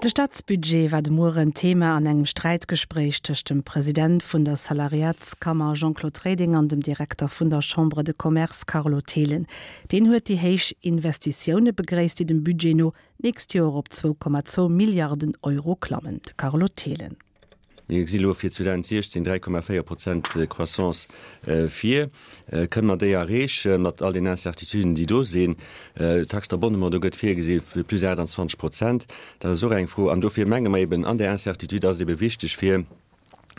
De Staatsbudget war de Mueren Thema an engem Sträitgespréich tëscht dem President vun der Salariatskammer Jean-Claude Reding an dem Direkter vun der Chambre de Commerce Carlo Thelen. Deen huet déi héich Investitioune begréisst, déi dem Budget no d'nächst Joer op 2,2 Milliarden Euro klammen. De Carlo Thelen. Mir gesi lo fir 2016 3,4 Prozent Croissance vir. Kënne mer déi erreechen, mat all den Incertituden, déi do sinn? D'Taxe d'abonnement, do gëtt virgesi fir plus 28 Prozent. Dat ass och eng Fro. An dofir menge mer eben, an där Incertitude ass et ebe wichteg, fir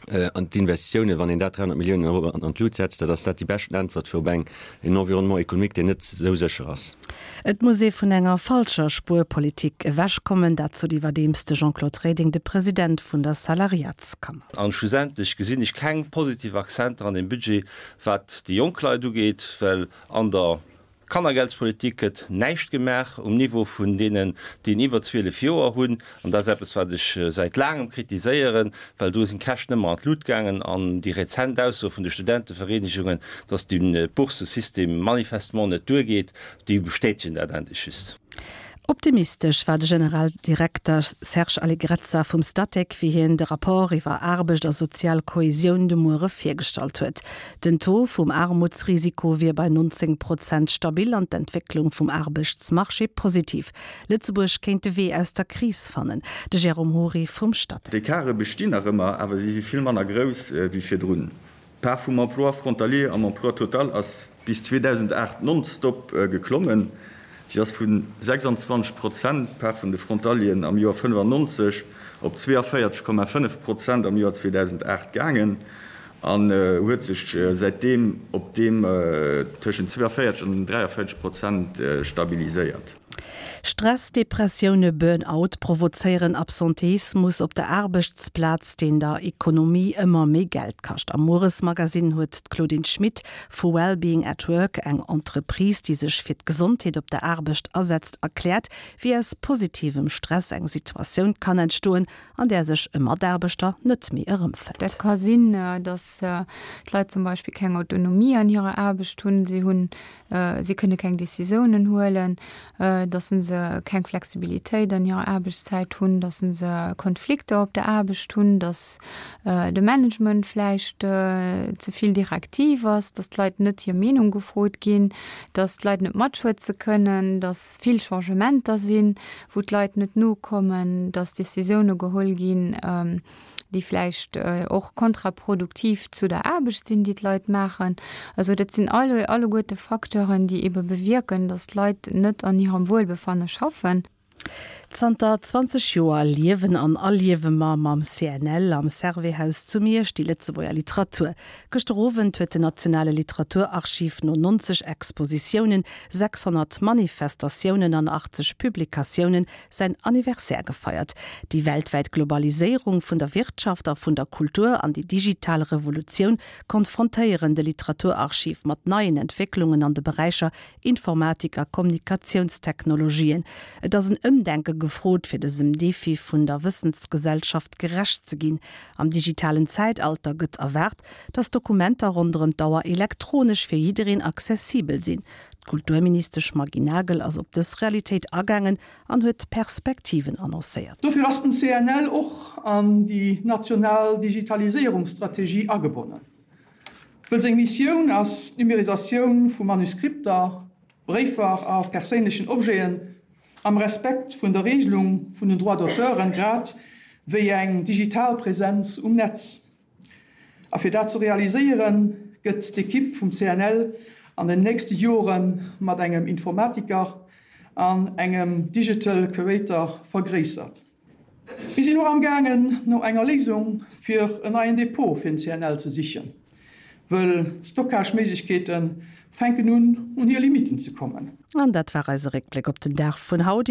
an d'Investitiounen, wann een dat 300 Milliounen Euro an d'Lut setzt, dat ass dat déi beschten Äntwert fir op eng, en Environnement économique, deen net esou sécher ass. Et muss ee vun enger falscher Spuerpolitik ewechkommen, dat sot iwwerdeems de Jean-Claude Reding, de President vun der Salariatskammer. An schlussendlech gesinn ech keng positiv Akzenter an deem Budget, wat déi jonk Leit ugeet, well an der Kannergeldspolitik gëtt näischt gemaach um Niveau vun deenen, déi iwwer 12 Joer hunn. An dat ass eppes, wat ech säit laangem kritiséieren, well do sinn d'Käschten ëmmer an d'Lut gaangen. An déi rezent Ausso vun de Studentevereenegungen, dass de Bourssesystem manifestement net duergeet, déi bestätegen dat endlech just. Optimistesch war de Generaldirekter Serge Allegrezza vum Statec, wéi hien de Rapport iwwer Aarbecht a sozial Kohesioun de Muere virgestallt huet. Den Taux vum Aarmutsrisiko wier bei 19 Prozent stabil an d'Entwécklung vum Aarbechtsmarché positiv. Lëtzebuerg kéint de Wee aus der Kris fannen. De Jérôme Hory vum Statec. D'Ecarte bestinn nach ëmmer, awer si si vill manner grouss wéi virdrun. D'Part vum Emploi frontalier am Emploi total ass bis 2008 nonstop geklommen. Si ass vu 26 Prozent, d'Part vun de Frontalieren, am Joer 95 op 42,5 Prozent am Joer 2008 gaangen an huet sech säitdeem op deem tëschent 42 an 43 Prozent stabiliséiert. Stress, Depressioune, Burn-out provozéieren Absenteismus op der Aarbechtsplaz, deen der Ekonomie ëmmer méi Geld kascht. Am Mueresmagazin huet d'Claudine Schmit vu Wellbeing at Work, eng Entreprise, déi sech fir d'Gesondheet op der Aarbecht asetzt, erkläert, wéi aus positivem Stress eng Situatioun kann entstoen, an där sech e Mataarbechter net méi erëmfënnt. Dat ka sinn, datt d'Leit zum Beispill keng Autonomie an hirer Aarbecht hunn, si hunn Si kënne keng Décisiounen huelen, datt se keng Flexibilitéit an hirer Aarbechtszäit hunn, datt se Konflikter op der Aarbecht hunn, datt de Management vläicht ze vill direktiv ass, datt d'Leit net hir Meenung gefrot ginn, datt d'Leit net matschwätze kënnen, datt vill Changementer sinn, wou d'Leit net nokommen, datt Décisioune geholl ginn, déi vläicht och kontraproduktiv zu der Aarbecht sinn, déi d'Leit maachen. Also dat sinn alle alleguerte Facteuren, déi ebe bewierken, datt d'Leit net an hirem Wuelbefanne schaffen. Zanter 20 Joer liewen an erliewe mer mam CNL am Servais-Haus zu Miersch déi Lëtzebuerger Literatur. Gëschter Owend huet den Nationale Literaturarchiv no 90 Expositiounen, 600 Manifestatiounen an 80 Publikatiounen säin Anniversaire gefeiert. Déi weltwäit Globaliséierung vun der Wirtschaft a vun der Kultur an déi digital Revolutioun konfrontéieren de Literaturarchiv mat neien Entwécklungen an de Beräicher Informatik a Kommunikatiounstechnologien. Et ass en Ëmdenke gefrot, fir dësem Defi vun der Wëssensgesellschaft gerecht ze ginn. Am digitalen Zäitalter gëtt erwaart, datt Dokumenter ronderëm d'Auer elektronesch fir jiddereen accessibel sinn. D'Kulturministesch Maggy Nagel ass op dës Realitéit agaangen an huet Perspektiven annoncéiert. Dofir ass den CNL och an déi national Digitaliséierungsstrategie agebonnen, wëll seng Missioun ass d'Numérisatioun vu Manuskripter, Bréifer a perséinlechen Objeten am Respekt vun der Regelung vun den Droits d'auteuren, grad wéi eng digital Präsenz um Netz. A fir dat ze realiséieren, gëtt d'Ekipp vum CNL an den nächste Jore mat engem Informatiker an engem Digital Curator vergréissert. Mir sinn och amgaangen, no enger Léisung fir en neien Depot fir den CNL ze sichen, wëll d'Stockage-Méiglechkeete fänken un, un hir Limitten ze kommen. An dat war eise Réckbléck op den Dag vun haut.